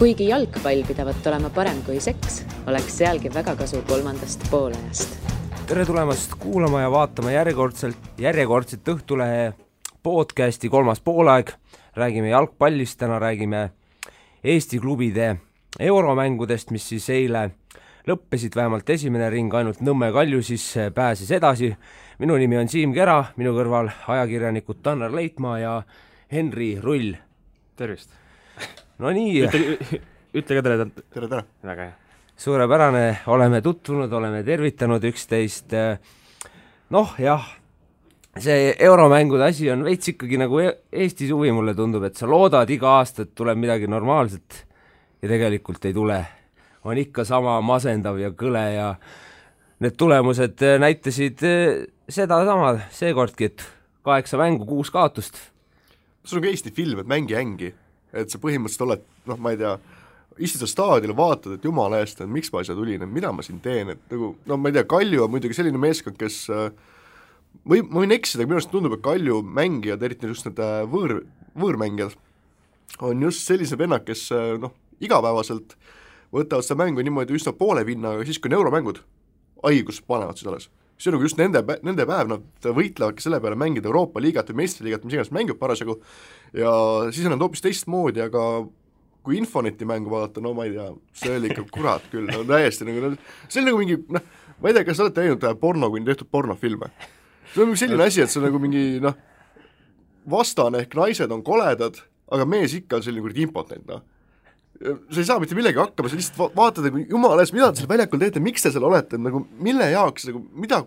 Kuigi jalgpall pidavat olema parem kui seks, oleks sealgi väga kasu kolmandast poolajast. Tere tulemast kuulama ja vaatama järjekordselt Õhtulehe podcasti kolmas poolaeg. Räägime jalgpallist, täna räägime Eesti klubide euromängudest, mis siis eile lõppesid, vähemalt esimene ring, ainult Nõmme Kalju siis pääses edasi. Minu nimi on Siim Kera, minu kõrval ajakirjanikud Tanner Leitmaa ja Henri Rull. Tervist. No nii. Ütle ka tere. Tere. Väga hea. Suurepärane, oleme tutvunud, oleme tervitanud üksteist. Noh, jah, see euromängude asi on veits ikkagi nagu Eesti suvi, mulle tundub, et sa loodad iga aasta, et tuleb midagi normaalset ja tegelikult ei tule. On ikka sama masendav ja kõle ja need tulemused näitasid seda sama seekordki, et 8 mängu, 6 kaotust. See on ka Eesti film, et mängi ängi, et sa põhimõtteliselt oled, ma ei tea, istud sa staadionil, vaatad, et jumala eest, et miks ma asja tulin, et mida ma siin teen, et nagu, ma ei tea, Kalju on muidugi selline meeskond, kes ma võin eksida, minu arust tundub, et Kalju mängijad, eriti just need võõrmängijad, on just sellise vennad, kes igapäevaselt võtavad seda mängu niimoodi üsna poole vinna, aga siis kui on euromängud, haigus panevad siis alles. See on nagu just nende päev, nad võitlevadki selle peale mängida Euroopa liigat või meistriliigat, mis iganes mängib parasjagu, ja siis on nad hoopis teistmoodi, aga kui Infoneti mängu vaadata, no ma ei tea, see oli ikka kurat küll, no täiesti nagu, see on nagu mingi, ma ei tea, kas olete näinud porno, kui tehtud pornofilme. See on selline asi, et see on nagu mingi, vastane ehk naised on koledad, aga mees ikka on selline kurid impotent, sa ei saa mitte millegi hakkama, sa lihtsalt vaatad, jumala ees, mida te seal väljakul teete, miks te seal olete, nagu mille jaoks, nagu mida,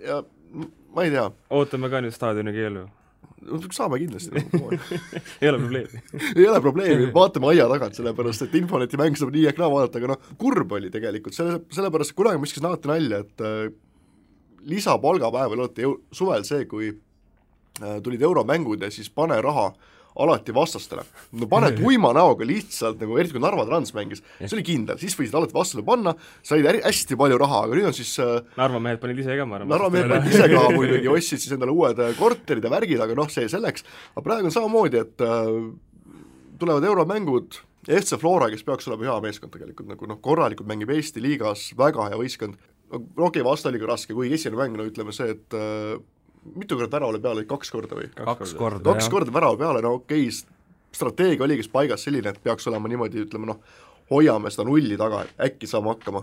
ja ma ei tea. Ootame ka nüüd staadioni keelu. Saame kindlasti. Ei ole probleemi. Ei ole probleemi, vaatame aia tagant, sellepärast, et Infoneti mäng saab nii ehk naa vaadata, aga kurb oli tegelikult, sellepärast kunagi ma iskis naati nalja, et lisapalgapäeval olete suvel see, kui tulid euromängud ja siis pane raha alati vastastele. No paned uima näoga lihtsalt, nagu eriti kui Narva Trans mängis, see oli kindel, siis võisid alati vastale panna, said hästi palju raha, aga nüüd on siis Narva mehed panid ise ka, ma arvan. Narva mehed panid ise ka muidugi, ostsid siis endale uued korterid ja värgid, aga see selleks. Aga praegu on samamoodi, et tulevad euromängud, FC Flora, kes peaks olema hea meeskond tegelikult, nagu korralikult mängib Eesti liigas, väga hea võistkond. Okei, vasta oli ka raske, kui esimene mäng, ütleme see, et mitu korda värava peale, 2 korda või? 2 korda, jah. 2 korda värava peale, okei, strateegia oli kes paigas selline, et peaks olema niimoodi, ütleme, hoiame seda nulli taga, et äkki saame hakkama.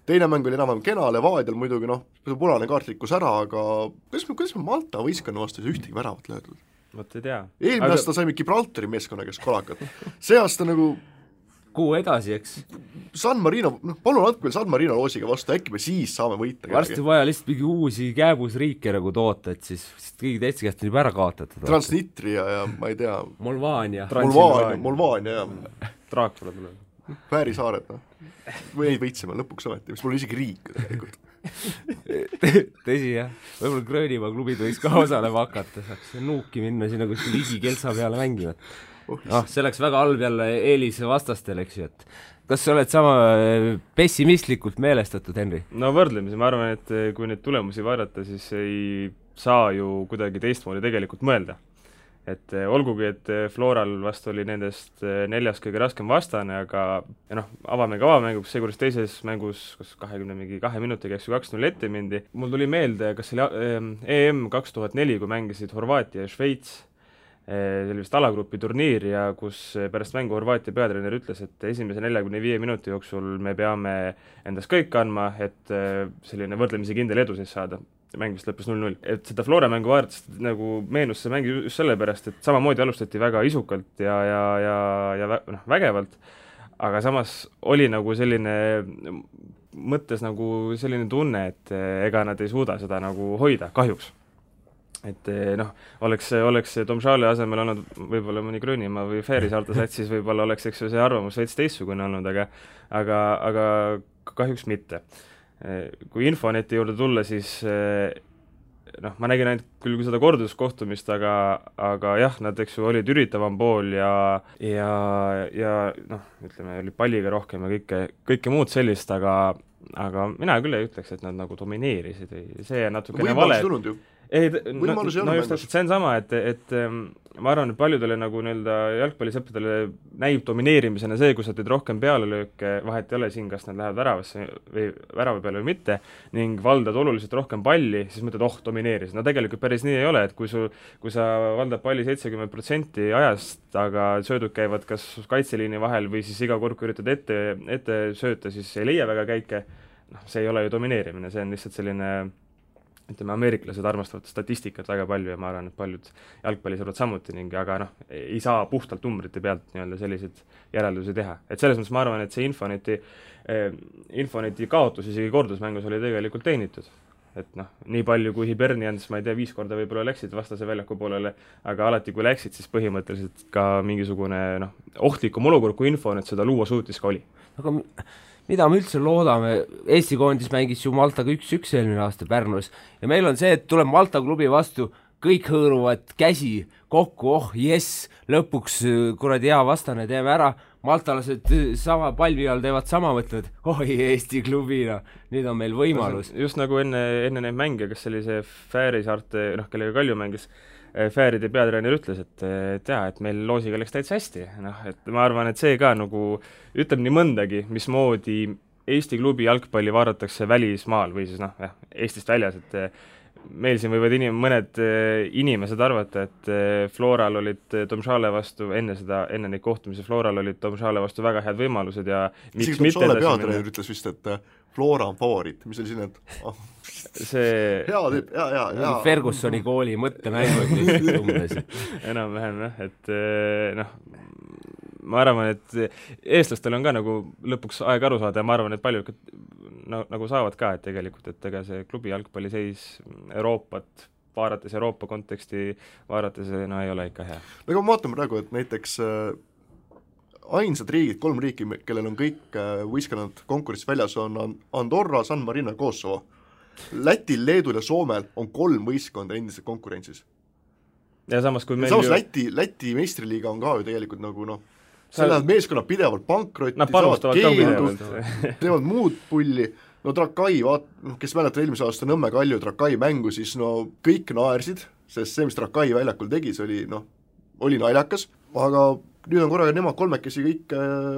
Teine mäng oli enam kena, Levadial muidugi, punane kaart rikkus ära, aga kuidas me Malta võistkonna vastu ühtegi väravat löödud? Võt ei tea. Eelmine aasta saime Gibraltari meeskonna, kes kolakad. See aasta nagu kuu edasi, eks? San Marino, palun andke meil San Marino loosiga vastu, äkki me siis saame võita. Varsti vaja lihtsalt mingi uusi kääbusriike nagu toota, et siis kõigi teiste käest on juba ära kaotatud. Transnitria ja ma ei tea. Molvaania, ja Draakula tuleb. Väärisaared, või neid võitsime lõpuks ometi, mis mul isegi riik tegelikult. Tõsi, jah. Võib-olla Gröönimaa klubid võiks ka osalema hakata, saaks nuuki minna sinna kuskil ligi Kelsa peale mängivad. See läks väga halb jälle eelis vastastel, eks ju, et kas sa oled sama pessimistlikult meelestatud, Henri? No võrdlemisi, ma arvan, et kui neid tulemusi vaadata, siis ei saa ju kuidagi teistmoodi tegelikult mõelda. Et olgugi, et Floral vast oli nendest 4 kõige raskem vastane, aga avame avamänguks, see kuris teises mängus, kus 22 minutiga 2-0 ette mindi. Mul tuli meelde, kas see oli EM 2004, kui mängisid Horvaatia ja Šveits, see oli vist alagrupi turniir ja kus pärast mängu Horvaatia peatreener ütles, et esimese 45 minuti jooksul me peame endast kõik andma, et selline võrdlemisi kindel edu siis saada. Mäng vist lõppes 0-0. Et seda Flora mängu vaadates nagu meenus see mäng just sellepärast, et samamoodi alustati väga isukalt ja vägevalt, aga samas oli nagu selline mõttes nagu selline tunne, et ega nad ei suuda seda nagu hoida, kahjuks. Et oleks Tomšale asemel olnud võib-olla mõni Gröönimaa või Fääri saarte sats, siis võib-olla oleks eks see arvamus veits teistsugune olnud, aga kahjuks mitte. Kui Infoneti juurde tulla, siis ma nägin ainult küll seda korduskohtumist, aga jah, nad eks ju olid üritavam pool ja ütleme, oli palliga rohkem ja kõike muud sellist, aga mina küll ei ütleks, et nad nagu domineerisid või see natukene vale. ei, võimalus ei ole just täpselt, see on sama, et ma arvan, et paljudele nagu nii-öelda jalgpallisõppedele näib domineerimisena see, kui sa teed rohkem pealelööke, vahet ei ole siin, kas nad lähevad väravasse või värava peale või mitte, ning valdad oluliselt rohkem palli, siis mõtled, domineeris. No tegelikult päris nii ei ole, et kui sa valdad palli 70% ajast, aga söödud käivad kas kaitseliini vahel või siis iga kord, kui üritad ette sööta, siis ei leia väga käike, see ei ole ju domineerimine, see on lihtsalt selline ütleme, ameeriklased armastavad statistikat väga palju ja ma arvan, et paljud jalgpallisõbrad samuti ning aga ei saa puhtalt numbrite pealt nii-öelda selliseid järeldusi teha. Et selles mõttes ma arvan, et see Infoneti kaotus isegi kordusmängus oli tegelikult teenitud. Et nii palju kui Hibernians, ma ei tea, 5 korda võib-olla läksid vastase väljaku poolele, aga alati kui läksid, siis põhimõtteliselt ka mingisugune ohtlikum olukord, kui Infonet seda luua suutis ka oli. Aga mida me üldse loodame, Eesti koondis mängis ju Maltaga 1-1 eelmine aasta Pärnus ja meil on see, et tuleb Malta klubi vastu, kõik hõõruvad käsi kokku, jess, lõpuks kuradi hea vastane, teeme ära, maltalased sama palvi all teevad sama, mõtlevad, Eesti klubina, nüüd on meil võimalus. Just nagu enne neid mänge, kas oli see Fääri saarte, kellega Kalju mängis, Fääride peatreener ütles, et meil loosiga läks täitsa hästi, et ma arvan, et see ka nagu ütleb nii mõndagi, mismoodi Eesti klubi jalgpalli vaadatakse välismaal või siis Eestist väljas, et meil siin võivad mõned inimesed arvata, et Floral olid Domžale vastu enne neid kohtumisi, Floral olid Domžale vastu väga head võimalused ja miks mitte Domžale peatreener ütles vist, et Flora on favoriit, mis oli siin, et see hea tüüp, hea. Fergusoni kooli mõttemängud lihtsalt umbes. Enam-vähem, et ma arvan, et eestlastel on ka nagu lõpuks aeg aru saada ja ma arvan, et paljud nagu saavad ka, et tegelikult, et ega see klubi jalgpalliseis Euroopat, vaadates Euroopa konteksti, vaadates ei ole ikka hea. Aga ma vaatan praegu, et näiteks ainsad riigid, 3 riiki, kellel on kõik võistkonnad konkurentsis väljas, on Andorra, San Marino ja Kosovo. Lätil, Leedul ja Soomel on 3 võistkonda endiselt konkurentsis. Ja samas, kui meil Läti meistriliiga on ka ju tegelikult nagu seal meeskonnad pidevalt pankrotti, teevad muud pulli, Trakai, kes mäletab eelmise aasta Nõmme Kalju Trakai mängu, siis kõik naersid, sest see, mis Trakai väljakul tegi, see oli naljakas, aga nüüd on korraga nemad kolmekesi kõik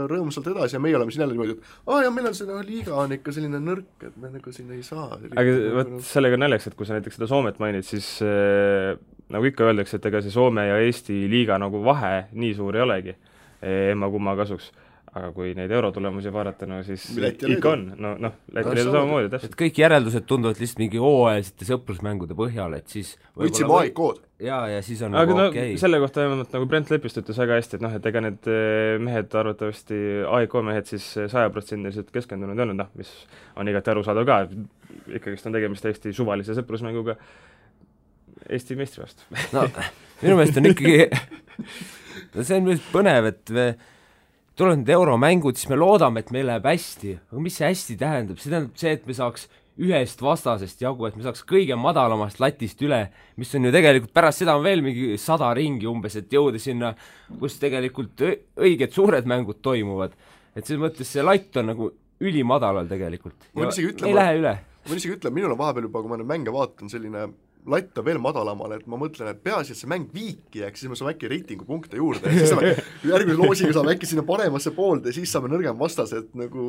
rõõmsalt edasi ja meie oleme siin jälle niimoodi, et ja meil on see liiga on ikka selline nõrk, et me nagu siin ei saa. Aga võt sellega naljaks, et kui sa näiteks seda Soomet mainid, siis nagu ikka öeldakse, et ega see Soome ja Eesti liiga nagu vahe nii suur ei olegi emma-kumma kasuks. Aga kui neid eurotulemusi vaadata, siis ikka on. Läti Leedu samamoodi, täpselt. Kõik järeldused tunduvad lihtsalt mingi hooajalisete sõprusmängude põhjal, et siis võtsime AIK-d. Ja siis on aga okei. Selle kohta nagu Brent Lepist ütles väga hästi, et ega need mehed, arvatavasti AIK mehed siis 100% keskendunud ei olnud, mis on igati arusaadav ka, ikkagist on tegemist Eesti suvalise sõprusmänguga Eesti meistri vastu. Minu meelest on ikkagi see on põnev, et tulevad need euromängud, siis me loodame, et meil läheb hästi. Aga mis see hästi tähendab? See tähendab see, et me saaks ühest vastasest jagu, et me saaks kõige madalamast latist üle, mis on ju tegelikult pärast seda on veel mingi 100 ringi umbes, et jõuda sinna, kus tegelikult õiged suured mängud toimuvad. Et selles mõttes see latt on nagu ülimadalal tegelikult. Ei lähe üle. Ma isegi ütlen, minul on vahepeal juba, kui ma nüüd mänge vaatan, selline latt on veel madalamale, et ma mõtlen, et peaasi, et see mäng viiki jääks, siis me saame äkki reitingupunkte juurde, siis saame järgmise loosiga saame äkki sinna paremasse poolde, siis saame nõrgem vastas, et nagu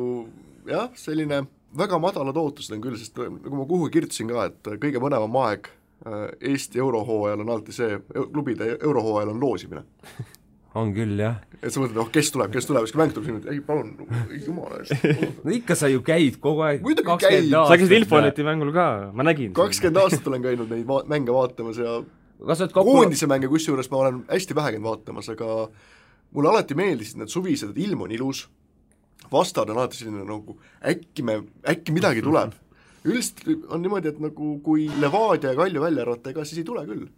selline väga madalad ootused on küll, sest nagu ma kuhugi kirjutasin ka, et kõige mõnevam aeg Eesti eurohooajal on alati see, klubide eurohooajal on loosimine. On küll, jah. Et sa mõtled, kes tuleb, siis kui mäng tuleb sinna, ei palun, jumala eest. Ikka sa ju käid kogu aeg. 20 aastat. Sa käisid Infoneti mängul ka, ma nägin. 20 aastat olen käinud neid mänge vaatamas ja koondise mänge, kusjuures ma olen hästi vähe käinud vaatamas, aga mulle alati meeldisid need suvised, et ilm on ilus, vastad on alati selline nagu äkki midagi tuleb. Üldiselt on niimoodi, et nagu kui Levadia ja Kalju välja arvata, ega siis ei tule küll.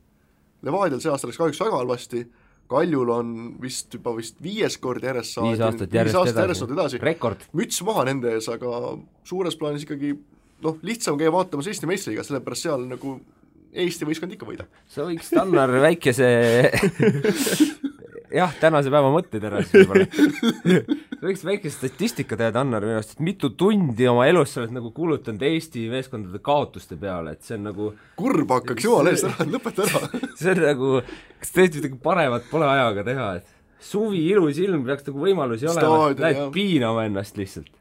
Levadial see aasta läks kahjuks väga halvasti, Kaljul on vist 5 kord järjest 5 aastat järjest edasi. Rekord. Müts maha nende ees, aga suures plaanis ikkagi lihtsam käia vaatamas Eesti meistriga, sellepärast seal nagu Eesti võistkond ikka võida. Sa võiks Tannar väikese tänase päeva mõtted ära siis võib-olla. võiks väike statistika teada, Annar, minu arust, et mitu tundi oma elus sa oled nagu kulutanud Eesti meeskondade kaotuste peale, et see on nagu kurb hakkaks jumala eest ära, lõpeta ära. see on nagu, kas tõesti midagi paremat pole ajaga teha, et suvi, ilus ilm, peaks nagu võimalusi olema, lähed piinama ennast lihtsalt.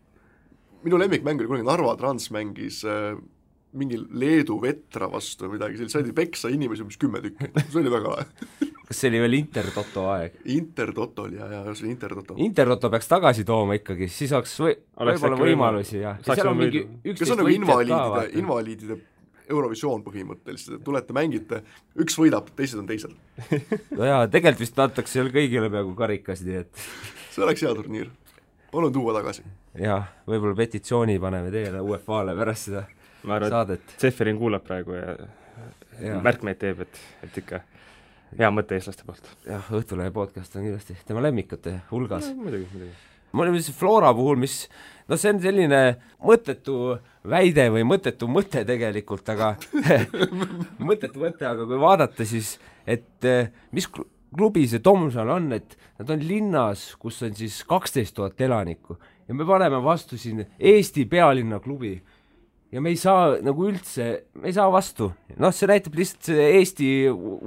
Minu lemmikmäng oli kunagi Narva Trans mängis mingi Leedu vetra vastu või midagi, saadi peksa inimesi umbes 10 tükki, see oli väga lahe. Kas see oli veel Intertoto aeg? Intertoto oli, ja see oli Intertoto. Intertoto peaks tagasi tooma ikkagi, siis oleks võib-olla võimalusi, jah. Kas on nagu invaliidide Eurovisioon põhimõtteliselt, tulete, mängite, üks võidab, teised on teised. No jaa, tegelikult vist antakse seal kõigile peaaegu karikas, nii et see oleks hea turniir. Palun tuua tagasi. Jah, võib-olla petitsiooni paneme teile UEFA-le pärast seda ma arvan, saadet. Zeferin kuulab praegu ja märkmeid teeb, et ikka hea mõte eestlaste poolt. Jah, Õhtulehe podcast on kindlasti tema lemmikute hulgas. Muidugi. Ma olin Flora puhul, mis, no see on selline mõttetu väide või mõttetu mõte tegelikult, aga mõttetu mõte, aga kui vaadata siis, et mis klubi see Tomsal on, et nad on linnas, kus on siis 12 000 elanikku ja me paneme vastu siin Eesti pealinna klubi ja me ei saa nagu üldse, me ei saa vastu. Noh, see näitab lihtsalt see Eesti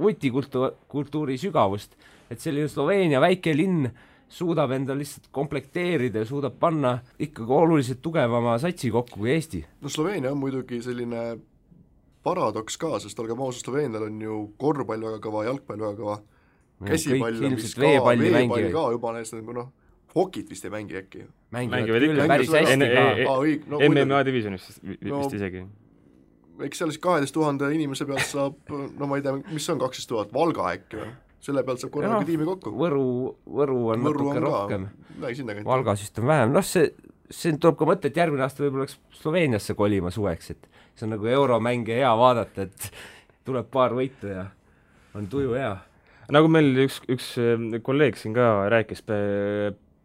vutikultuuri sügavust, et selline Sloveenia väike linn suudab enda lihtsalt komplekteerida ja suudab panna ikkagi oluliselt tugevama satsi kokku kui Eesti. No Sloveenia on muidugi selline paradoks ka, sest olgem ausad, Sloveenial on ju korvpall väga kõva, jalgpall väga kõva, käsipall on vist ka, veepall ka juba näistab, noh, hokit vist ei mängi äkki. Mängivad ikka päris hästi ka. MMA divisionis vist isegi. Eks seal siis 12 000 inimese pealt saab, no ma ei tea, mis on 12 000, Valga äkki või? Selle pealt saab korraga tiimi kokku. Võru on natuke rohkem. Valgas vist on vähem. Noh, see tuleb ka mõte, et järgmine aasta võib-olla oleks Sloveeniasse kolima suveks, et see on nagu euromänge hea vaadata, et tuleb paar võitu ja on tuju hea. Nagu meil üks kolleeg siin ka rääkis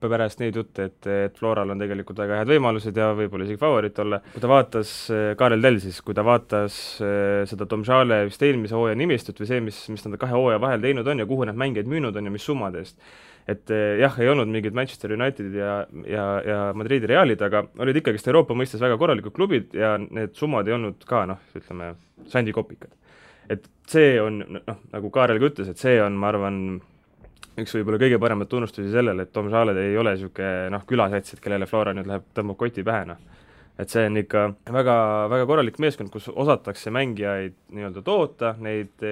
pärast neid jutte, et Floral on tegelikult väga head võimalused ja võib-olla isegi favoriit olla. Kui ta vaatas, Kaarel Tell siis, kui ta vaatas seda Tomžale vist eelmise hooaja nimistut või see, mis nad 2 hooaja vahel teinud on ja kuhu nad mängijaid müünud on ja mis summade eest. Et jah, ei olnud mingid Manchester Unitedid ja Madridi Realid, aga olid ikkagist Euroopa mõistes väga korralikud klubid ja need summad ei olnud ka, ütleme, sandikopikad. Et see on, nagu Kaarel ka ütles, et see on, ma arvan, üks võib-olla kõige paremat tunnustusi sellele, et Tomžaled ei ole niisugune külasatsid, kellele Flora nüüd läheb tõmbab koti pähe. Et see on ikka väga, väga korralik meeskond, kus osatakse mängijaid nii-öelda toota, neid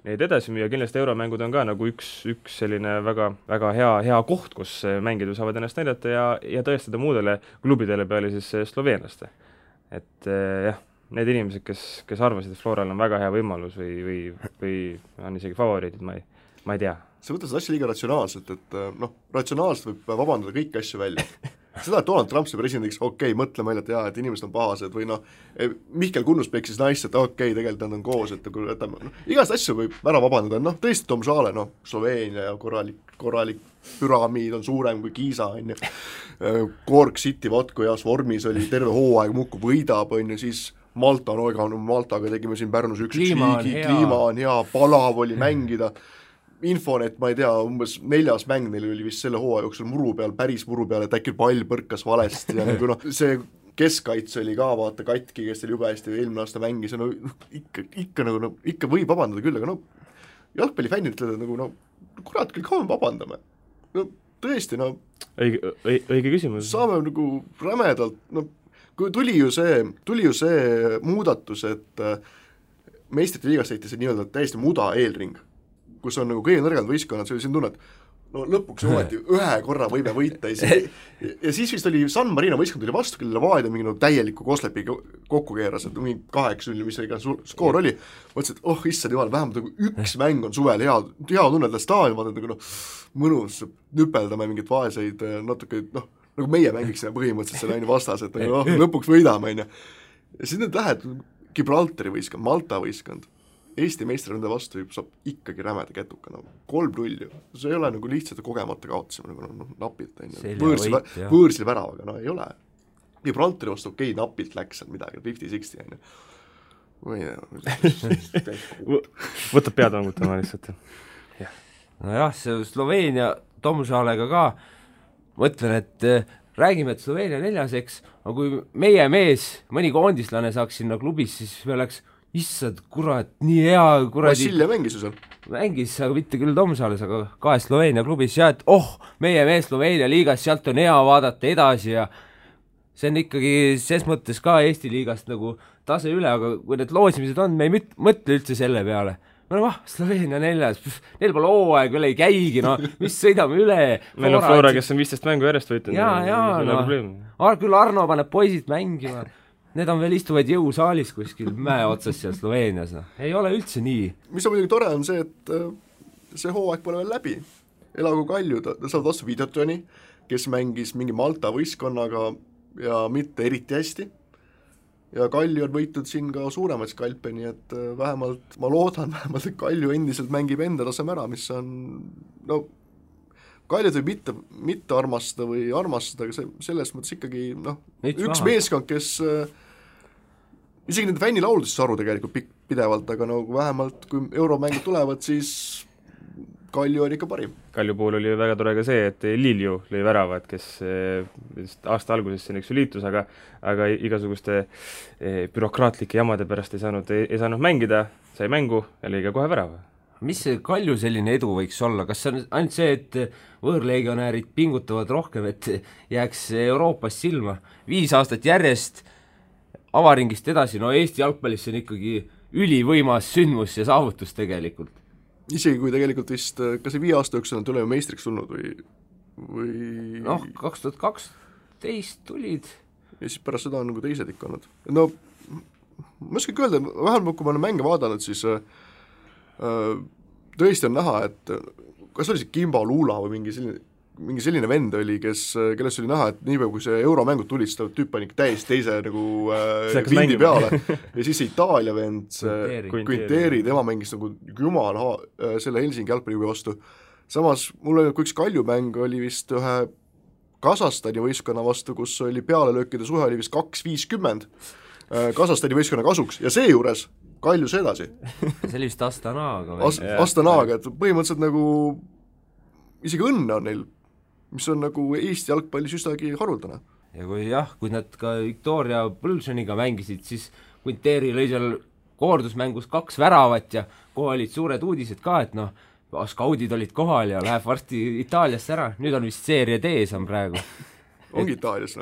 edasi müüa, kindlasti euromängud on ka nagu üks selline väga, väga hea koht, kus mängijad saavad ennast näidata ja tõestada muudele klubidele peale siis sloveenlaste. Et jah, need inimesed, kes arvasid, et Floral on väga hea võimalus või on isegi favoriidid, ma ei tea. Sa võtad seda asja liiga ratsionaalselt, et ratsionaalselt võib vabandada kõiki asju välja. Seda, et Donald Trump see presidendiks, mõtle meile, et inimesed on pahased või Mihkel Kunnus peksis naist, et tegelikult nad on koos, et igast asju võib ära vabandada, tõesti Tomžale, Sloveenia ja korralik püramiid on suurem kui Kiisa, Cork City, kui heas vormis oli, terve hooaeg muudkui võidab, siis Maltaga tegime siin Pärnus üks kliima on hea, palav oli mängida, Infonet, ma ei tea, umbes 4. mäng neil oli vist selle hooaja jooksul päris muru peal, et äkki pall põrkas valesti ja see keskkaitse oli ka, vaata, katki, kes teil jube hästi eelmine aasta mängis ja ikka võib vabandada küll, aga jalgpallifännid ütlevad, kurat küll, kaua me vabandame. Tõesti, õige küsimus. Saame rämedalt, kui tuli ju see muudatus, et meistrite liigas tehti see nii-öelda täiesti muda eelring, kus on kõige nõrgad võistkonnad, see oli siin tunne, et lõpuks ometi ühe korra võime võita ja siis vist oli San Marino võistkond tuli vastu, kellele Vaaida mingi täieliku Koslepi kokku keeras, et mingi 8-0, mis iga skoor oli, mõtlesin, et issand jumal, vähemalt üks mäng on suvel hea tunned staadion, vaatad mõnus, nüpeldame mingit vaeseid natuke, nagu meie mängiksime põhimõtteliselt selle vastas, et lõpuks võidame, ja siis need lähed Gibraltari võistkond, Malta võistkond, Eesti meistraründe vastu saab ikkagi rämeda kätuka, 3-0, see ei ole lihtsalt kogemata kaotasime, napilt, võõrsil väravaga, ei ole. Gibraltari vastu napilt läks seal midagi, 50-60, võtab pead vangutama lihtsalt. Nojah, see Sloveenia Tomžalega ka, mõtlen, et räägime, et Sloveenia 4, eks, aga kui meie mees, mõni koondislane saaks sinna klubis, siis me oleks, issand, kurat, nii hea, kuradi Vassilja mängis ju seal. mängis, aga mitte küll Tomsales, aga 2 Sloveenia klubis ja et meie mees Sloveenia liigas, sealt on hea vaadata edasi ja see on ikkagi ses mõttes ka Eesti liigast nagu tase üle, aga kui need loosimised on, me ei mõtle üldse selle peale. Me oleme, Sloveenia 4, neil pole hooaeg veel ei käigi, no mis sõidame üle. Meil on Flora, kes on 15 mängu järjest võitnud. Küll Arno paneb poisid mängima. Need on veel istuvad jõusaalis kuskil mäe otsas seal Sloveenias. Ei ole üldse nii. Mis on muidugi tore on see, et see hooaeg pole veel läbi. Elagu Kalju, ta saab vastu Videotoni, kes mängis mingi Malta võistkonnaga ja mitte eriti hästi. Ja Kalju on võitud siin ka suuremaid skalpe, nii et vähemalt, ma loodan vähemalt, et Kalju endiselt mängib enda taseme ära, mis on, no, Kaljud võib mitte armastada või armastada, aga selles mõttes ikkagi, üks meeskond, kes isegi nende fännilauludest saru tegelikult pidevalt, aga nagu vähemalt kui euromängud tulevad, siis Kalju on ikka parim. Kalju puhul oli väga tore ka see, et Lilju lõi väravad, kes aasta alguses siin üks liitus, aga igasuguste bürokraatlike jamade pärast ei saanud mängida, sai mängu ja lõi ka kohe värava. Mis see Kalju selline edu võiks olla? Kas see on ainult see, et võõrlegionäärid pingutavad rohkem, et jääks Euroopas silma? 5 aastat järjest avaringist edasi, no Eesti jalgpallis on ikkagi ülivõimas sündmus ja saavutus tegelikult. Isegi kui tegelikult vist, kas see 5 aasta jooksul on tulema meistriks tulnud või 2012 tulid. Ja siis pärast seda on nagu teised ikka olnud. No, ma oskagi öelda, vähemalt kui ma olen mänge vaadanud, siis tõesti on näha, et kas oli see Kimbo Luula või mingi selline vend oli, kellest oli näha, et niipea kui see euromängud tulid, seda tüüp pani täiesti teise nagu vindi peale ja siis see Itaalia vend, Quinteri, tema mängis nagu jumal selle Helsingi jalgpalliklubi vastu. Samas mul oli üks Kaljumäng oli vist ühe Kasahstani võistkonna vastu, kus oli pealelöökide suhe oli vist 2-50 Kasahstani võistkonna kasuks ja seejuures Kaljus edasi. See oli vist Astanaaga. Astanaaga, et põhimõtteliselt nagu isegi õnne on neil, mis on nagu Eesti jalgpallis üstagi haruldane. Ja kui nad ka Victoria Pulsioniga mängisid, siis Quinteri lõi seal koordusmängus 2 väravat ja kohe olid suured uudised ka, et skaudid olid kohal ja läheb varsti Itaaliasse ära. Nüüd on vist seeria D on praegu. Ongi Itaalias,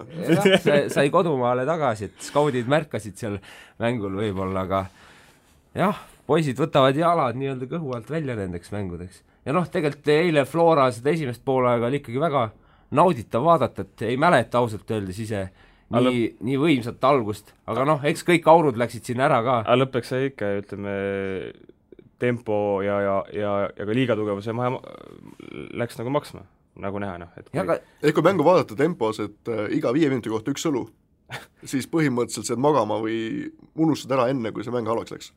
sai kodumaale tagasi, et skaudid märkasid seal mängul võib-olla, aga jah, poisid võtavad jalad nii-öelda kõhu alt välja nendeks mängudeks. Ja tegelikult eile Flora seda esimest poolaega oli ikkagi väga nauditav vaadata, et ei mäleta ausalt öeldes ise nii võimsat algust, aga eks kõik aurud läksid sinna ära ka. Aga lõppeks sai ikka, ütleme, tempo ja ka liigatugevuse läks nagu maksma, nagu näha. Kui mängu vaadata tempos, et iga 5 minuti kohta 1 õlu, siis põhimõtteliselt saad magama või unustad ära enne, kui see mäng halvaks läks.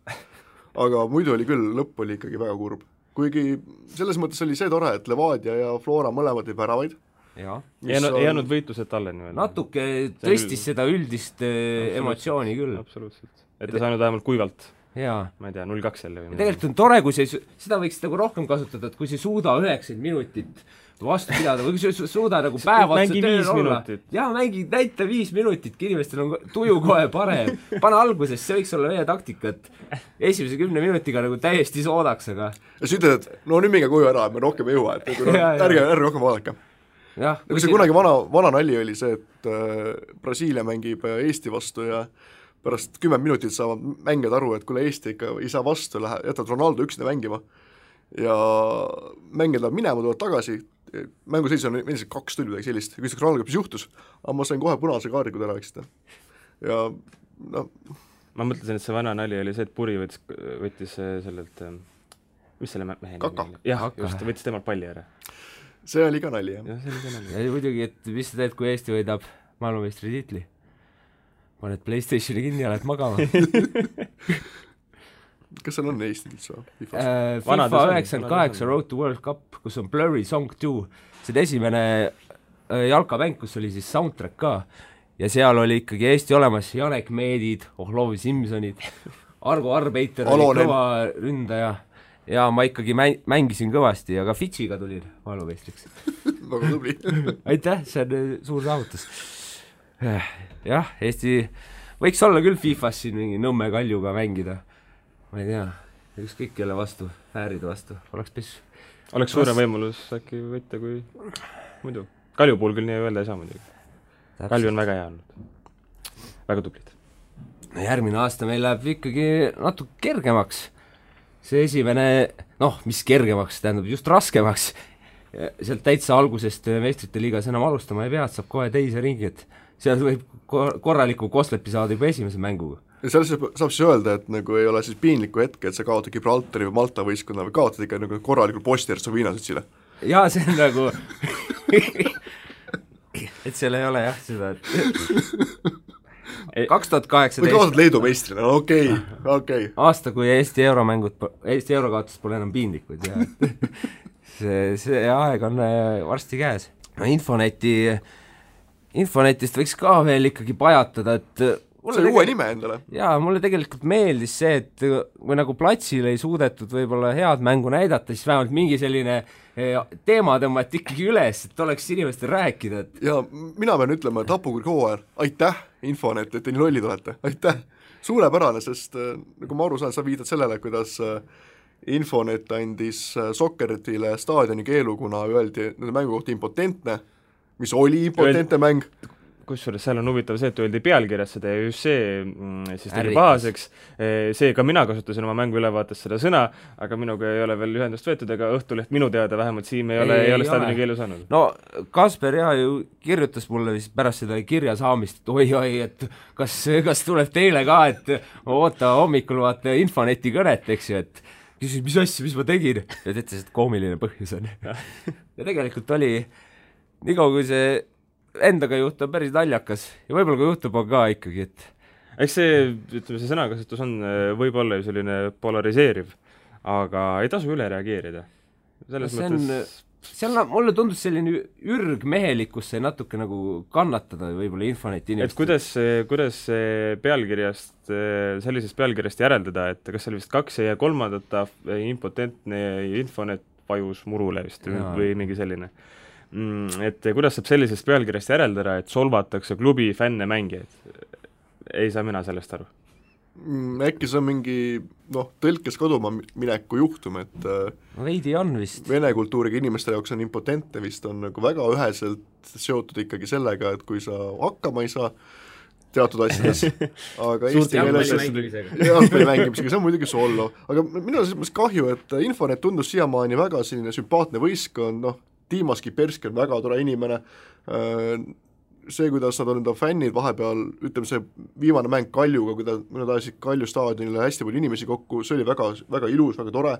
Aga muidu oli küll, lõpp oli ikkagi väga kurb. Kuigi selles mõttes oli see tore, et Levadia ja Flora mõlemad ei väravaid. Ei jäänud võitlused talle nii. Natuke tõstis seda üldist emotsiooni küll. Absoluutselt. Et ei saanud vähemalt kuivalt. Ma ei tea, 0-2 jälle. Tegelikult on tore, kui seda võiks nagu rohkem kasutada, et kui see suuda 90 minutit vastu pidada või kui suuda nagu päev otsa tööl olla. Näita 5 minutit, inimestel on tuju kohe parem. Pane alguses, see võiks olla meie taktika, et esimese 10 minutiga nagu täiesti soodaks, aga ja siis ütled, et no nüüd minge koju ära, et me rohkem ei jõua, et ärge rohkem vaadake. Kui see kunagi vana nali oli see, et Brasiilia mängib Eesti vastu ja pärast 10 minutit saavad mängijad aru, et kuule Eesti ikka ei saa vastu, jätavad Ronaldo üksinda mängima ja mängijad lähevad minema, tulevad tagasi, mänguseis on endiselt 2 tundi midagi sellist, ja küsitakse Ronaldo, mis juhtus, aga ma sain kohe punase kaardi, kui ta rääksite. Ja ma mõtlesin, et see vana nali oli see, et Puri võttis sellelt, mis selle mehe Kaka. Jah, just, võttis temalt palli ära. See oli ka nali, jah. Ja muidugi, et mis sa teed, kui Eesti võidab maailmameistri tiitli? Paned PlayStationi kinni ja lähed magama. Kas seal on Eesti üldse? FIFA 98 Road to World Cup, kus on Blurry Song 2. See esimene jalkamäng, kus oli siis soundtrack ka. Ja seal oli ikkagi Eesti olemas Janek Meedid, Ohlovi Simsonid, Argo Arbeiter oli kõva ründaja. ja ma ikkagi mängisin kõvasti ja ka Fitšiga tulin maailmameistriks. Väga tubli. Aitäh, see on suur saavutus. Jah, Eesti võiks olla küll FIFAs siin mingi Nõmme Kaljuga mängida. Ma ei tea, ükskõik kelle vastu, Ääride vastu, oleks pissu. Oleks suurem võimalus äkki võtta kui muidu. Kalju puhul küll nii öelda ei saa muidugi. Kalju on väga hea olnud. Väga tublid. No järgmine aasta meil läheb ikkagi natuke kergemaks. See esimene, mis kergemaks, tähendab just raskemaks. Sealt täitsa algusest meistrite liigas enam alustama ei pea, et saab kohe teise ringi, et seal võib korraliku koslepi saada juba esimese mänguga. Ja seal saab siis öelda, et nagu ei ole siis piinliku hetke, et sa kaotad Gibraltari või Malta võistkonna või kaotad ikka nagu korralikul Bosnia-Hertsegoviina. Jaa, see on nagu et seal ei ole jah seda, et 2018 või kaotad Leedu meistrina, okei. Aasta, kui Eesti eurokaotus pole enam piinlikud ja see aeg on varsti käes. No Infonetist võiks ka veel ikkagi pajatada, et see oli uue nime endale. Jaa, mulle tegelikult meeldis see, et kui nagu platsil ei suudetud võib-olla head mängu näidata, siis vähemalt mingi selline teema tõmmati ikkagi üles, et oleks inimestel rääkida. Et... Ja mina pean ütlema, et Hapukur Hooajar, aitäh Infonet, et te nii lollid olete, aitäh. Suurepärane, sest nagu ma aru saan, sa viidad sellele, kuidas Infonet andis Sokkeritile staadioni keelu, kuna öeldi nende mängu kohta impotentne, mis oli impotentne mäng. Kusjuures seal on huvitav see, et öeldi pealkirjas seda ja just see siis tegi pahaseks. See ka mina kasutasin oma mängu ülevaates seda sõna, aga minuga ei ole veel ühendust võetud, ega Õhtuleht minu teada vähemalt Siim ei ole staadioni keelu saanud. No Kasper ju kirjutas mulle vist pärast seda kirja saamist, et oi, et kas tuleb teile ka, et oota hommikul vaata Infoneti kõnet, eks ju, et küsis, mis asja, mis ma tegin, ja ütles, et koomiline põhjus on. Ja tegelikult oli nii kaua, kui see endaga juhtub päris naljakas ja võib-olla kui juhtub on ka ikkagi, et eks see sõnakasutus on võib-olla ju selline polariseeriv, aga ei tasu üle reageerida. Selles mõttes... Seal mulle tundus selline ürgmehelikkus sai natuke nagu kannatada võib-olla Infoneti inimestel. Et kuidas pealkirjast, sellisest pealkirjast järeldada, et kas seal vist 2 ja 3 impotentne Infonet vajus murule vist või mingi selline. Et kuidas saab sellisest pealkirjast järeldada, et solvatakse klubi fänne mängijaid? Ei saa mina sellest aru. Äkki see on mingi tõlkes kaduma mineku juhtum, et veidi on vist. Vene kultuuriga inimeste jaoks on impotentne vist on nagu väga üheselt seotud ikkagi sellega, et kui sa hakkama ei saa teatud asjades, aga Eesti jalgpalli mängimisega, see on muidugi sollo, aga minu on kahju, et Infonet tundus siiamaani väga selline sümpaatne võistkond, Tiimas Kiperski on väga tore inimene, see, kuidas nad on enda fännid vahepeal, ütleme see viimane mäng Kaljuga, kui nad ajasid Kalju staadionile hästi palju inimesi kokku, see oli väga, väga ilus, väga tore,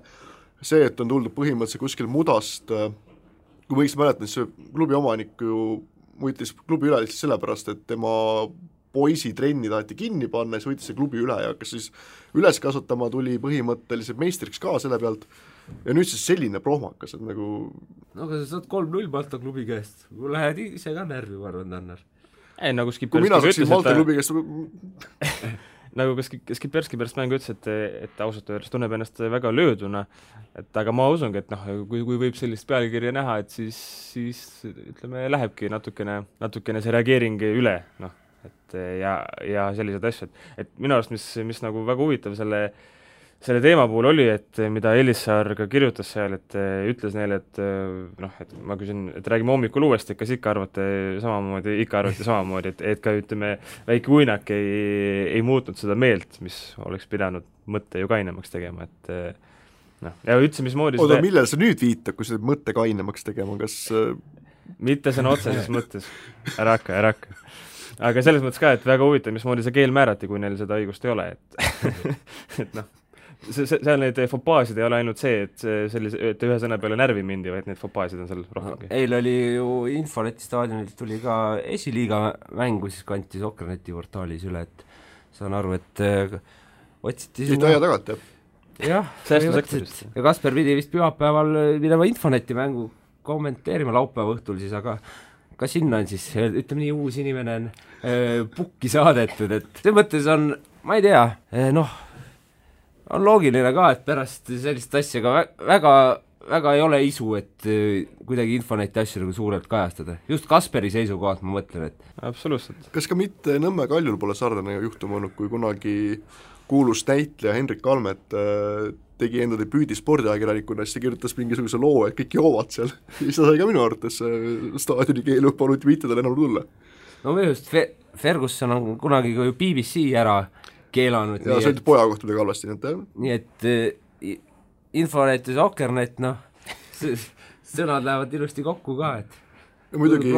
see, et on tuldud põhimõtteliselt kuskil mudast, kui võiks mäletada, see klubi omanik ju võitis klubi üle lihtsalt sellepärast, et tema poisi trenni taheti kinni panna, siis võitis see klubi üle ja kas siis üles kasvatama tuli põhimõtteliselt meistriks ka selle pealt. Ja nüüd siis selline prohmakas, et nagu... No aga sa saad 3-0 Malta klubi käest. Lähed ise ka närvi, ma arvan, Tannar. Ei, nagu kui mina saaksin Malta klubi käest... nagu Skipperski pärast mängu ütles, et ausalt öeldes tunneb ennast väga lööduna, et aga ma usungi, et kui võib sellist pealkirja näha, et siis ütleme, lähebki natukene see reageering üle, et ja sellised asjad. Et minu arust, mis nagu väga huvitav selle teema puhul oli, et mida Elissaar ka kirjutas seal, et ütles neile, et ma küsin, et räägime hommikul uuesti, kas ikka arvate samamoodi, et ka ütleme, väike uinak ei muutnud seda meelt, mis oleks pidanud mõtte ju kainemaks tegema, et ja üldse, mismoodi oota, millal sa nüüd viitab, kui seda mõtte kainemaks tegema, kas mitte sõna otseses mõttes, ära hakka. Aga selles mõttes ka, et väga huvitav, mismoodi see keel määrati, kui neil seda õigust ei ole, et seal neid fopaasid ei ole ainult see, et ühe sõna peale närvi mindi, vaid need fopaasid on seal rohkemgi. Eil oli ju Infoneti staadionilt tuli ka esiliiga mängu, siis kanti Sokkerneti portaalis üle, et saan aru, et otsiti siit aja tagant, jah, ja Kasper pidi vist pühapäeval minema Infoneti mängu kommenteerima laupäeva õhtul siis, aga ka sinna on siis, ütleme nii, uus inimene on pukki saadetud, et see mõttes on, ma ei tea, on loogiline ka, et pärast sellist asja ka väga ei ole isu, et kuidagi Infoneti asju nagu suurelt kajastada. Just Kasperi seisukohalt ma mõtlen, et absoluutselt. Kas ka mitte Nõmme Kaljul pole sarnane juhtum olnud, kui kunagi kuulus näitleja Hendrik Kalmet tegi enda debüüdi spordiajakirjanikuna, siis kirjutas mingisuguse loo, et kõik joovad seal. Ja seda sai ka minu arvates staadioni keelu, paluti mitte tal enam tulla. no minu just Ferguson on kunagi ju BBC ära keelanud. Ja see oli poja kohta midagi halvasti. Nii et Infonet ja Soccernet, sõnad lähevad ilusti kokku ka, et ja muidugi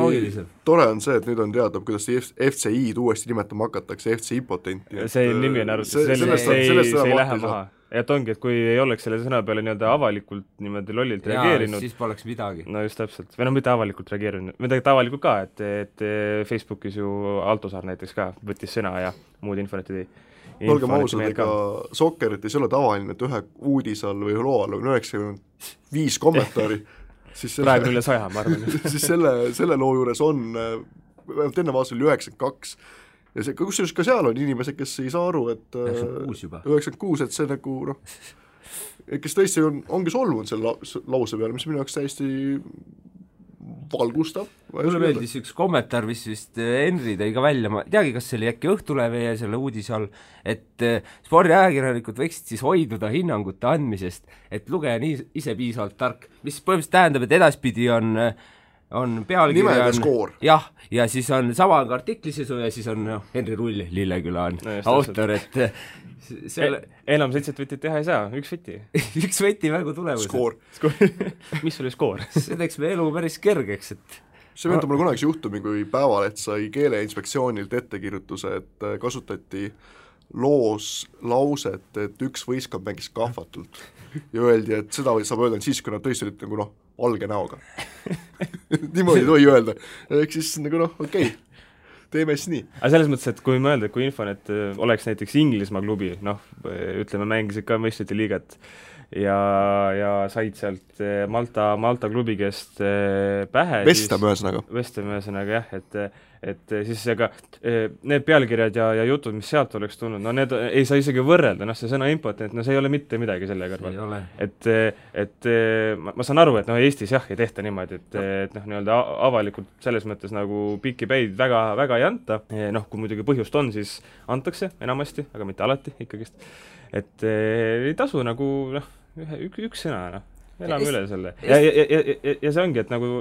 tore on see, et nüüd on teada, kuidas FCI-d uuesti nimetama hakatakse, FC Impotenti. See nimi on arvates, see ei lähe maha. Et ongi, et kui ei oleks selle sõna peale nii-öelda avalikult niimoodi lollilt reageerinud, siis poleks midagi. No just täpselt, või mitte avalikult reageerinud, midagi avalikult ka, et Facebookis ju Altosaar näiteks ka võttis sõna ja muud infonet ei olgem ausad, ega Soccerit ei ole tavaline, et ühe uudis all või loo all on 95 kommentaari praegu üle 100, ma arvan. siis selle loo juures on enne vaasa oli 92 ja see, kusjuures ka seal on inimesed, kes ei saa aru, et 96, et see nagu kes tõesti ongi solvunud selle lause peale, mis minu jaoks täiesti valgustav. Mulle meeldis üks kommentaar, mis vist Henri tõi ka välja, ma teagi, kas see oli äkki Õhtulehe ja selle uudise all, et spordiajakirjanikud võiksid siis hoiduda hinnangute andmisest, et lugeja ise piisavalt tark, mis põhimõtteliselt tähendab, et edaspidi on pealkirja jah, ja siis on sama artiklisisu ja siis on Henri Rull, Lilleküla on autor, et enam 7 võtid teha ei saa, üks võti. üks võti mängu tulemus. Skoor. Mis oli skoor? See teeks me elu päris kergeks, et see meenutab mulle kunagi juhtumi, kui Päevaleht sai Keeleinspektsioonilt ettekirjutuse, et kasutati loos lauset, et üks võistkond mängis kahvatult ja öeldi, et seda saab öelda siis, kui nad tõesti olid nagu valge näoga. Niimoodi tohi öelda. Ehk siis nagu okei, teeme siis nii. Aga selles mõttes, et kui mõelda, kui Infonet oleks näiteks Inglismaa klubi, ütleme, mängisid ka meistrite liigat ja said sealt Malta klubi käest pähe. Vestam ühesõnaga jah, et siis ega need pealkirjad ja jutud, mis sealt oleks tulnud, need ei saa isegi võrrelda, see sõna impotent, see ei ole mitte midagi selle kõrval. Et ma saan aru, et Eestis jah ei tehta niimoodi, et nii-öelda avalikult selles mõttes nagu pikki päid väga ei anta, kui muidugi põhjust on, siis antakse enamasti, aga mitte alati ikkagist. Et ei tasu nagu üks sõna, elame üle selle. Ja see ongi, et nagu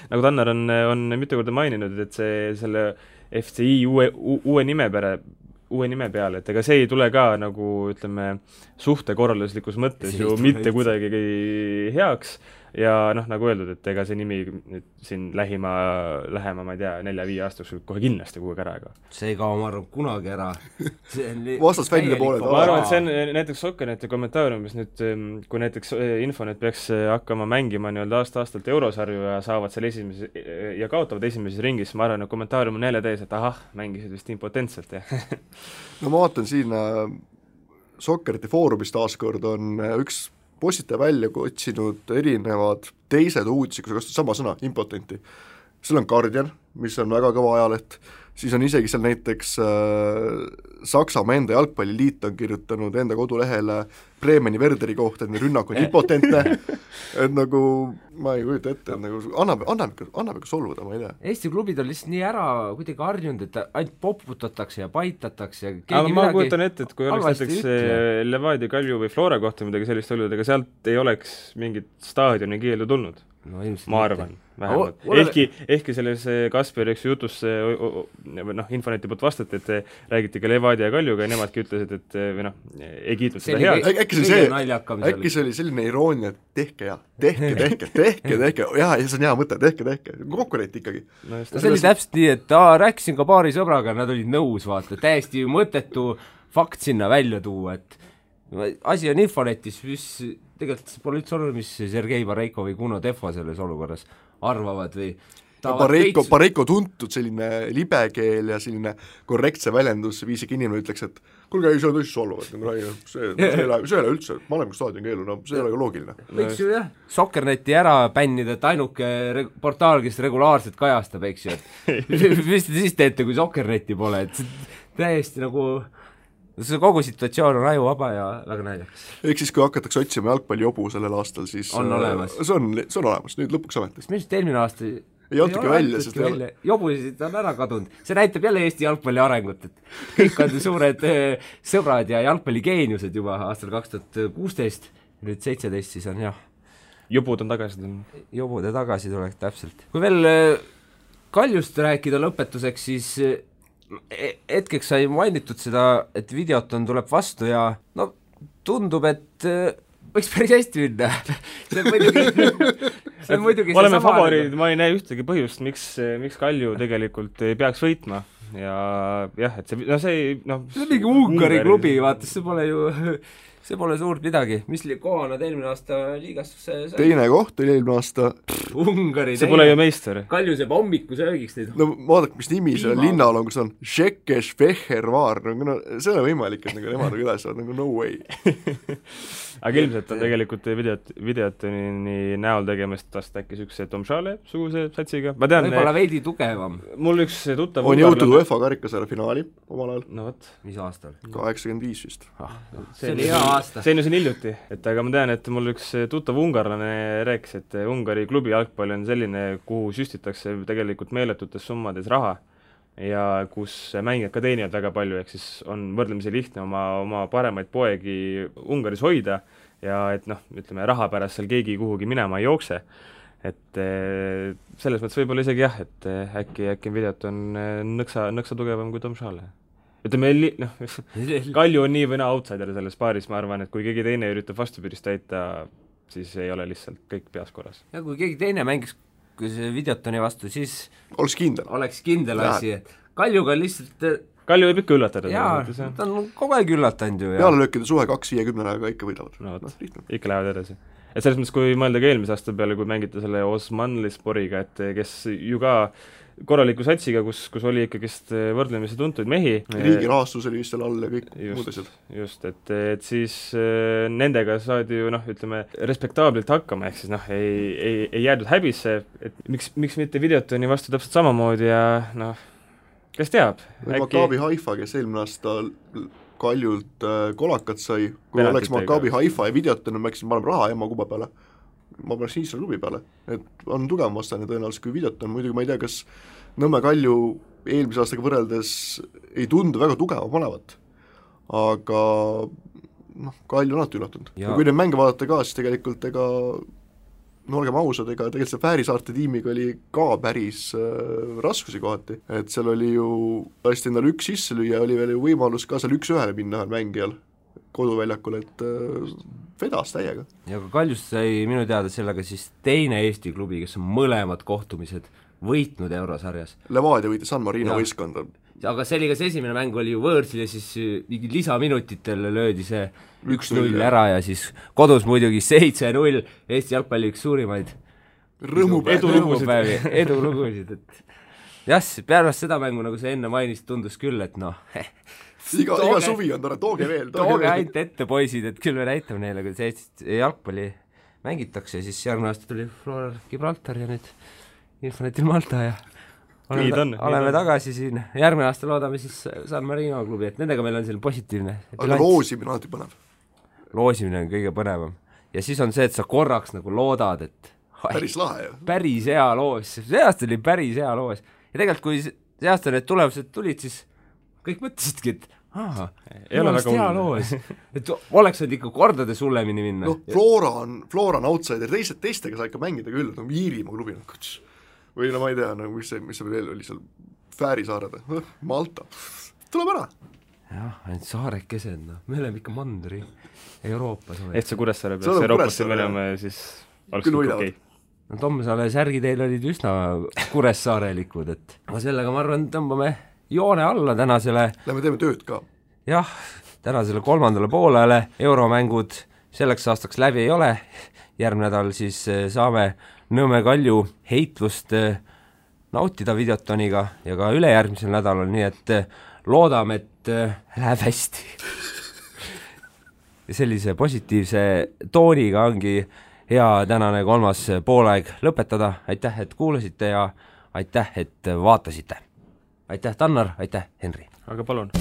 Tannar on mitu korda maininud, et selle FCI uue nime peale, et ega see ei tule ka nagu, ütleme, suhtekorralduslikus mõttes ju mitte kuidagi heaks ja nagu öeldud, et ega see nimi siin lähema, ma ei tea, 4-5 aastaks kohe kindlasti kuhugi ära. See ei kao, ma arvan, kunagi ära. Vastasfännide pooled. Ma arvan, et see on näiteks Soccerneti kommentaariumis nüüd, kui näiteks Infonet peaks hakkama mängima nii-öelda aasta-aastalt eurosarju ja saavad seal ja kaotavad esimeses ringis, ma arvan, et kommentaarium on jälle täis, et mängisid vist impotentselt. No ma vaatan siin Soccerneti foorumis taaskord on üks postitaja välja otsinud erinevad teised uudised, kui sa kasutad sama sõna, impotenti. Seal on Guardian, mis on väga kõva ajaleht, siis on isegi seal näiteks Saksamaa enda jalgpalliliit on kirjutanud enda kodulehele Bremeni Werderi kohta, et rünnak on impotentne, et nagu ma ei kujuta ette, et nagu annab ikka solvuda, ma ei tea. Eesti klubid on lihtsalt nii ära kuidagi harjunud, et ainult poputatakse ja paitatakse. Aga ma kujutan ette, et kui oleks näiteks Levadia, Kalju või Flora kohta midagi sellist olnud, ega sealt ei oleks mingit staadioni keeldu tulnud. Ma arvan, vähemalt. Ehkki selles Kasperi jutus Infoneti poolt vastati, et räägiti ka Levadia ja Kaljuga ja nemadki ütlesid, et ei kiitnud seda head. Äkki see oli selline iroonia, et tehke ja tehke, jah, see on hea mõte, tehke, konkurent ikkagi. See oli täpselt nii, et rääkisin ka paari sõbraga, nad olid nõus, vaata, täiesti mõttetu fakt sinna välja tuua, et asi on Infonetis, mis tegelikult pole üldse olnud, mis Sergei Bareiko või Kuno Tehva selles olukorras arvavad või Bareiko tuntud selline libekeel ja selline korrektse väljendusviisiga inimene ütleks, et kuulge, see on tõesti solvuvad, see ei ole üldse, ma olen staadion keelu, see ei ole ka loogiline. Võiks ju jah, Soccerneti ära bännida, et ainuke portaal, kes regulaarselt kajastab, eks ju, et mis te siis teete, kui Soccerneti pole, et täiesti nagu see kogu situatsioon on ajuvaba ja väga naljakas. Ehk siis, kui hakatakse otsima jalgpallijobu sellel aastal, siis on olemas. See on olemas, nüüd lõpuks ametist. Minu arust eelmine aasta ei olnudki välja, sest jobusid on ära kadunud. See näitab jälle Eesti jalgpalli arengut, et kõik on suured sõbrad ja jalgpalligeeniused juba aastal 2016, nüüd 17 siis on jah. Jobud on tagasi tulnud. Jobude tagasi tulek, täpselt. Kui veel Kaljust rääkida lõpetuseks, siis hetkeks sai mainitud seda, et Videoton tuleb vastu ja no tundub, et võiks päris hästi minna. see on muidugi oleme favoriidid, ma ei näe ühtegi põhjust, miks Kalju tegelikult ei peaks võitma ja jah, et see on mingi Ungari klubi, vaata, see pole suurt midagi. Mis koha nad eelmine aasta liigastusse sai? Teine koht oli eelmine aasta. Ungari see pole ju meister. Kalju seeb hommikusöögiks neid. No vaadake, mis nimi selle linnal on, kus on Šekeš Vehervaar, see on võimalik, et nemad üles on, no way. Aga ilmselt on tegelikult Videotoni näol tegemist vast äkki sükse Tomšale suguse satsiga. Ma tean, võib-olla veidi tugevam. Mul üks tuttav on jõutud UEFA karikasarja finaali omal ajal. No võt. Mis aastal? 85 vist. See oli hea aasta. See on ju siin hiljuti, et aga ma tean, et mul üks tuttav ungarlane rääkis, et Ungari klubi jalgpall on selline, kuhu süstitakse tegelikult meeletutes summades raha ja kus mängijad ka teenivad väga palju, ehk siis on võrdlemisi lihtne oma paremaid poegi Ungaris hoida ja et ütleme, raha pärast seal keegi kuhugi minema ei jookse. Et selles mõttes võib-olla isegi jah, et äkki Videoton nõksa tugevam kui Tomšale. Ütleme, Kalju on nii või naa outsider selles paaris, ma arvan, et kui keegi teine üritab vastupidist täita, siis ei ole lihtsalt kõik peas korras. Ja kui keegi teine mängiks kui see Videotoni vastu, siis oleks kindel asi, et Kaljuga lihtsalt Kalju võib ikka üllatada. Jaa, ta on kogu aeg üllatanud ju. Pealelöökide suhe 2-50 ikka võidavad. Ikka lähevad edasi. Et selles mõttes, kui mõelda ka eelmise aasta peale, kui mängite selle Osmanlisporiga, et kes ju ka korraliku satsiga, kus oli ikkagist võrdlemisi tuntuid mehi. Riigi rahastus oli vist seal all ja kõik muud asjad. Just, et siis nendega saadi ju, ütleme, respektaablilt hakkama, ehk siis ei jäädud häbisse, et miks mitte Videotoni vastu täpselt samamoodi ja kes teab? Maccabi Haifa, kes eelmine aasta Kaljult kolakat sai, kui oleks Maccabi Haifa ja Videoton, ma rääkisin, ma olen raha Emma kuba peale. Ma paneks Iisraeli klubi peale, et on tugevam vastane tõenäoliselt kui Videoton, muidugi ma ei tea, kas Nõmme Kalju eelmise aastaga võrreldes ei tundu väga tugeva panevat, aga Kalju on alati üllatunud. Ja kui neid mänge vaadata ka, siis tegelikult olgem ausad, tegelikult see Fäärisaarte tiimiga oli ka päris raskusi kohati, et seal oli ju lasti endale üks sisse lüüa, oli veel ju võimalus ka seal 1-1 minna ühel mängijal koduväljakul, et vedas täiega. Ja ka Kaljust sai minu teada sellega siis teine Eesti klubi, kes on mõlemad kohtumised võitnud eurosarjas. Levadia võitis San Marino võistkonda. Aga see oli ka see esimene mäng oli ju võõrsil ja siis mingi lisaminutitel löödi see 1-0 ära ja siis kodus muidugi 7-0 Eesti jalgpalli üks suurimaid edulugusid, et jah, pärast seda mängu, nagu sa enne mainist, tundus küll, et iga suvi on tore, tooge veel. Tooge ainult ette, poisid, et küll me näitame neile, kui see jalgpalli mängitakse, siis järgmine aasta tuli Flora Gibraltar ja nüüd Infonetil Malta ja oleme tagasi siin. Järgmine aasta loodame siis San Marino klubi, et nendega meil on selline positiivne. Aga loosimine on alati põnev. Loosimine on kõige põnevam. Ja siis on see, et sa korraks nagu loodad, et päris lahe, päris hea loos. See aasta oli päris hea loos. Ja tegelikult, kui see aasta need tulemused tulid, siis kõik mõtlesidki, et ei ole väga hea loos. Et oleks nüüd ikka kordades hullemini minna. Flora on outsider, teistega sa ikka mängida küll, Iirimaa klubi või ma ei tea, mis see veel oli seal Fäärisaared, Malta, tuleb ära. Jah, ainult saarekesed, me oleme ikka mandri Euroopas. Et see Kuressaare peaks Euroopasse minema ja siis oleks kõik okei. Tommsaale särgi teil olid üsna Kuressaarelikud, et sellega ma arvan, tõmbame joone alla tänasele. Lähme teeme tööd ka. Jah, tänasele 3. poolele euromängud selleks aastaks läbi ei ole. Järgmine nädal siis saame Nõmme Kalju heitlust nautida Videotoniga ja ka ülejärgmisel nädalal, nii et loodame, et läheb hästi. Ja sellise positiivse tooniga ongi hea tänane 3. poolaeg lõpetada. Aitäh, et kuulasite ja aitäh, et vaatasite. Aitäh, Tannar, aitäh, Henri. Aga palun.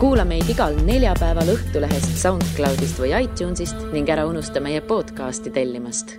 kuula meid igal neljapäeval Õhtulehest, SoundCloudist või iTunesist ning ära unusta meie podcasti tellimast.